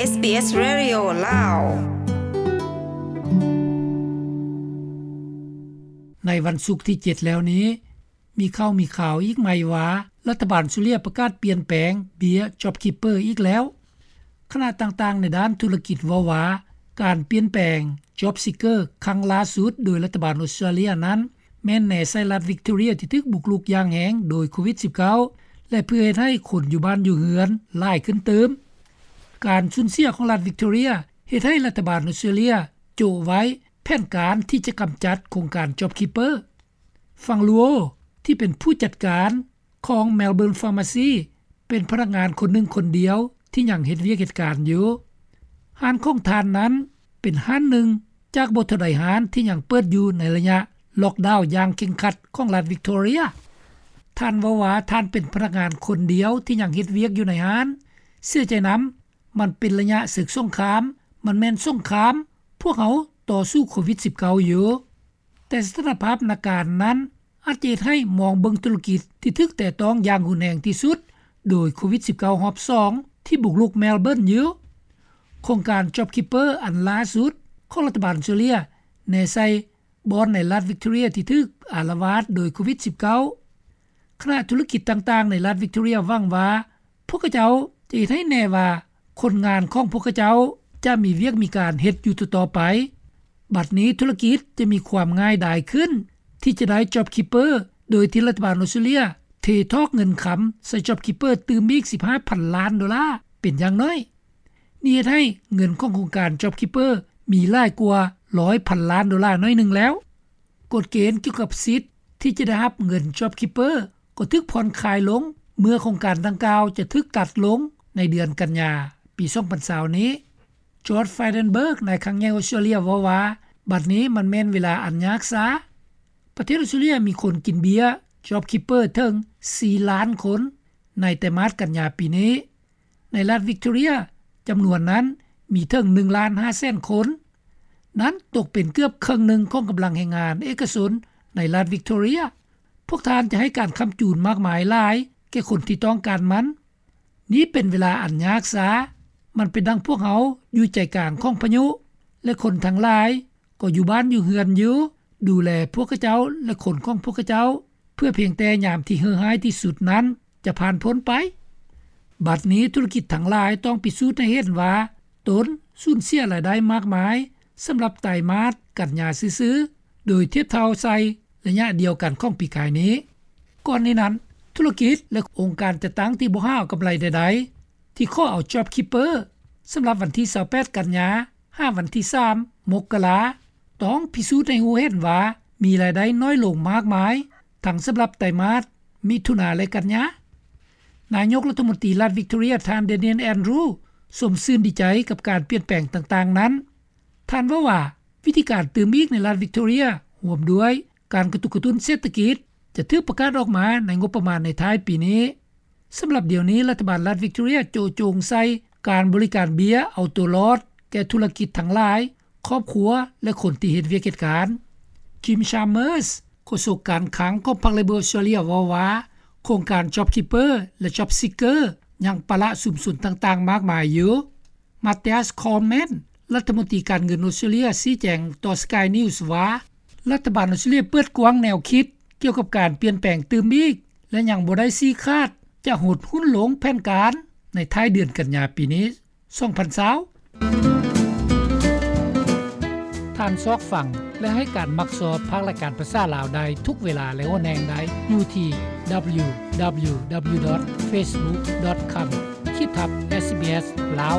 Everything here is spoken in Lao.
SBS Radio ລາວ. ໃນວັນສຸກທີເຈັດແລ້ວນີ້ ມີຂ່າວມີຂ່າວອີກໃໝ່ວ່າ ລັດຖະບານອົດສະຕຣາເລຍປະກາດປ່ຽນແປງເບ້ຍ JobKeeper ອີກແລ້ວ. ຄະນະຕ່າງໆໃນດ້ານທຸລະກິດເວົ້າວ່າ ການປ່ຽນແປງ JobSeeker ຄັ້ງລ່າສຸດໂດຍລັດຖະບານອົດສະຕຣາເລຍນັ້ນ ແມ່ນແນໃສ່ລັດ Victoria ທີ່ຖືກບຸກລຸກຢ່າງແຮງໂດຍໂຄວິດສິບເກົ້າ ແລະ ເພື່ອເຮັດໃຫ້ຄົນຢູ່ບ້ານຢູ່ເຮືອນຫຼາຍຂຶ້ນຕື່ມ. ການສູນເສຍຂອງລັດ Victoria ເຮັດໃຫ້ລັດຖະບານອົດສະຕຣາເລຍໂຈະໄວ້ແຜນການທີ່ຈະກຳຈັດໂຄງການ JobKeeper. ຟັງລູໂອ ທີ່ເປັນຜູ້ຈັດການຂອງ Melbourne Pharmacy ເປັນພະນັກງານຄົນໜຶ່ງຄົນດຽວທີ່ຍັງເຮັດວຽກເຮັດການຢູ່. ຮ້ານຂອງທ່ານນັ້ນເປັນຮ້ານໜຶ່ງຈາກບໍ່ເທົ່າໃດຮ້ານທີ່ຍັງເປີດຢູ່ໃນໄລຍະລັອກດາວຢ່າງເຄັ່ງຄັດຂອງລັດ Victoria. ທ່ານເວົ້າວ່າທ່ານເປັນພະນັກງານຄົນດຽວທີ່ຍັງເຮັດວຽກຢູ່ໃນຮ້ານ. ເສຍໃຈນຳ, ມັນເປັນໄລຍະເສິກສົງຄາມ, ມັນແມ່ນສົງຄາມ, ພວກເຮົາຕໍ່ສູ້ໂຄວິດສິບເກົ້າຢູ່. ແຕ່ສະຖານະພາບນາການນັ້ນອາດຈະເຮັດໃຫ້ມອງເບິ່ງທຸລະກິດທີ່ຖືກແຕະຕ້ອງຢ່າງຮຸນແຮງທີ່ສຸດໂດຍໂຄວິດສິບເກົ້າຮອບສອງທີ່ບຸກລຸກ Melbourne ຢູ່. ໂຄງການ JobKeeper ອັນລ່າສຸດຂອງລັດຖະບານອົດສະຕຣາເລຍແນໃສ່ບ່ອນໃນລັດ Victoria ທີ່ຖືກອາລະວາດໂດຍໂຄວິດສິບເກົ້າ. ຄະນະທຸລະກິດຕ່າງໆໃນລັດ Victoria ຫວັງວ່າ ພວກເຂົາເຈົ້າຈະເຮັດໃຫ້ແນ່ວ່າຄົນງານຂອງພວກເຂົາເຈົ້າຈະມີວຽກມີການເຮັດຢູ່ຕໍ່ໆໄປ. ບັດນີ້ທຸລະກິດຈະມີຄວາມງ່າຍດາຍຂຶ້ນທີ່ຈະໄດ້ JobKeeper ໂດຍທີ່ລັດຖະບານອົດສະຕຣາເລຍເທຖອກເງິນຄຳໃສ່ JobKeeper ຕື່ມອີກສິບຫ້າພັນລ້ານໂດລາເປັນຢ່າງໜ້ອຍ. ນີ້ເຮັດໃຫ້ເງິນຂອງໂຄງການ JobKeeper ມີຫຼາຍກວ່າຮ້ອຍພັນລ້ານໂດລາໜ້ອຍໜຶ່ງແລ້ວ. ກົດເກນກ່ຽວກັບສິດທີ່ຈະໄດ້ຮັບເງິນ JobKeeper ກໍຖືກຜ່ອນຄາຍລົງ ເມື່ອໂຄງການດັ່ງກ່າວຈະຖືກຕັດລົງໃນເດືອນກັນຍາປີສອງພັນຊາວນີ້. George Frydenberg ນາຍຄັງໃຫຍ່ອົດສະຕຣາເລຍເວົ້າວ່າ ບັດນີ້ມັນແມ່ນເວລາອັນຍາກຊ້າ. ປະເທດອົດສະຕຣາເລຍມີຄົນກິນເບ້ຍ JobKeeper ເຖິງສີ່ລ້ານຄົນໃນໄຕມາດກັນຍາປີນີ້. ໃນລັດ Victoria ຈຳນວນນັ້ນມີເຖິງໜຶ່ງລ້ານຫ້າແສນຄົນ. ນັ້ນຕົກເປັນເກືອບເຄິ່ງໜຶ່ງຂອງກຳລັງແຮງງານເອກະຊົນໃນລັດ Victoria. ພວກທ່ານຈະໃຫ້ການຄ້ຳຈູນມາກມາຍຫຼາຍແກ່ຄົນທີ່ຕ້ອງການມັນ. ນີ້ເປັນເວລາອັນຍາກຊ້າ. ມັນເປັນດັ່ງພວກເຮົາຢູ່ໃຈກາງຂອງພາຍຸ ແລະ ຄົນທັງຫຼາຍ ກໍຢູ່ບ້ານຢູ່ເຮືອນຢູ່ ດູແລພວກເຂົາເຈົ້າ ແລະ ຄົນຂອງພວກເຂົາເຈົ້າ ເພື່ອພຽງແຕ່ຍາມທີ່ເຫື່ອຮ້າຍທີ່ສຸດນັ້ນຈະຜ່ານພົ້ນໄປ. ບັດນີ້ທຸລະກິດທັງຫຼາຍຕ້ອງພິສູດໃຫ້ເຫັນວ່າຕົນສູນເສຍລາຍໄດ້ມາກມາຍສຳລັບໄຕມາດກັນຍາຊື່ໆ ໂດຍທຽບເທົ່າໃສ່ໄລຍະດຽວກັນຂອງປີກາຍນີ້. ກ່ອນນີ້ນັ້ນ, ທຸລະກິດ ແລະ ອົງການຈັດຕັ້ງທີ່ບໍ່ຫາເອົາກຳໄລໃດໆ ທີ່ຂໍເອົາ JobKeeper ສຳລັບວັນທີຊາວແປດ ກັນຍາ ຫາວັນທີສາມ ມົກກະລາ ຕ້ອງພິສູດໃຫ້ຮູ້ເຫັນວ່າມີລາຍໄດ້ນ້ອຍລົງມາກມາຍ ທັງສຳລັບໄຕມາດ ມິຖຸນາ ແລະ ກັນຍາ. ນາຍົກລັດຖະມົນຕີລັດ Victoria ທ່ານ Daniel Andrews ຊົມຊື່ນດີໃຈກັບການປ່ຽນແປງຕ່າງໆນັ້ນ. ທ່ານເວົ້າວ່າ ວິທີການຕື່ມອີກໃນລັດ Victoria ຮ່ວມດ້ວຍ ການກະຕຸກກະຕຸ້ນເສດຖະກິດ ຈະຖືກປະກາດອອກມາໃນງົບປະມານໃນທ້າຍປີນີ້. ສຳລັບດຽວນີ້ ລັດຖະບານລັດ Victoria ໂຈະຈົງໃສ່ການບໍລິການເບ້ຍເອົາຕົວລອດແກ່ທຸລະກິດທັງຫຼາຍ, ຄອບຄົວ ແລະ ຄົນທີ່ເຮັດວຽກເຮັດການ. Jim Chalmers ໂຄສົກການຄັງຂອງພັກ Labor Australia ເວົ້າວ່າ ໂຄງການ JobKeeper ແລະ JobSeeker ຍັງປະລະຊຸມຊົນຕ່າງໆມາກມາຍຢູ່. Mathias Cormann ລັດຖະມົນຕີການເງິນອົດສະຕຣາເລຍ ຊີ້ແຈງຕໍ່ Sky News ວ່າ ລັດຖະບານອົດສະຕຣາເລຍເປີດກວ້າງແນວຄິດກ່ຽວກັບການປ່ຽນແປງຕື່ມອີກ ແລະ ຍັງບໍ່ໄດ້ຊີ້ຂາດຈະຫົດຫຸ້ນລົງແຜນການໃນທ້າຍເດືອນກັນຍາປີນີ້ ສອງພັນຊາວ. ທ່ານຊອກຟັງ ແລະ ໃຫ້ການມັກຊອບພາກລາຍການພາສາລາວໄດ້ທຸກເວລາ ແລະ ຫົວແຫ່ງໃດ ຢູ່ທີ່ www.facebook.com/sbs ລາວ.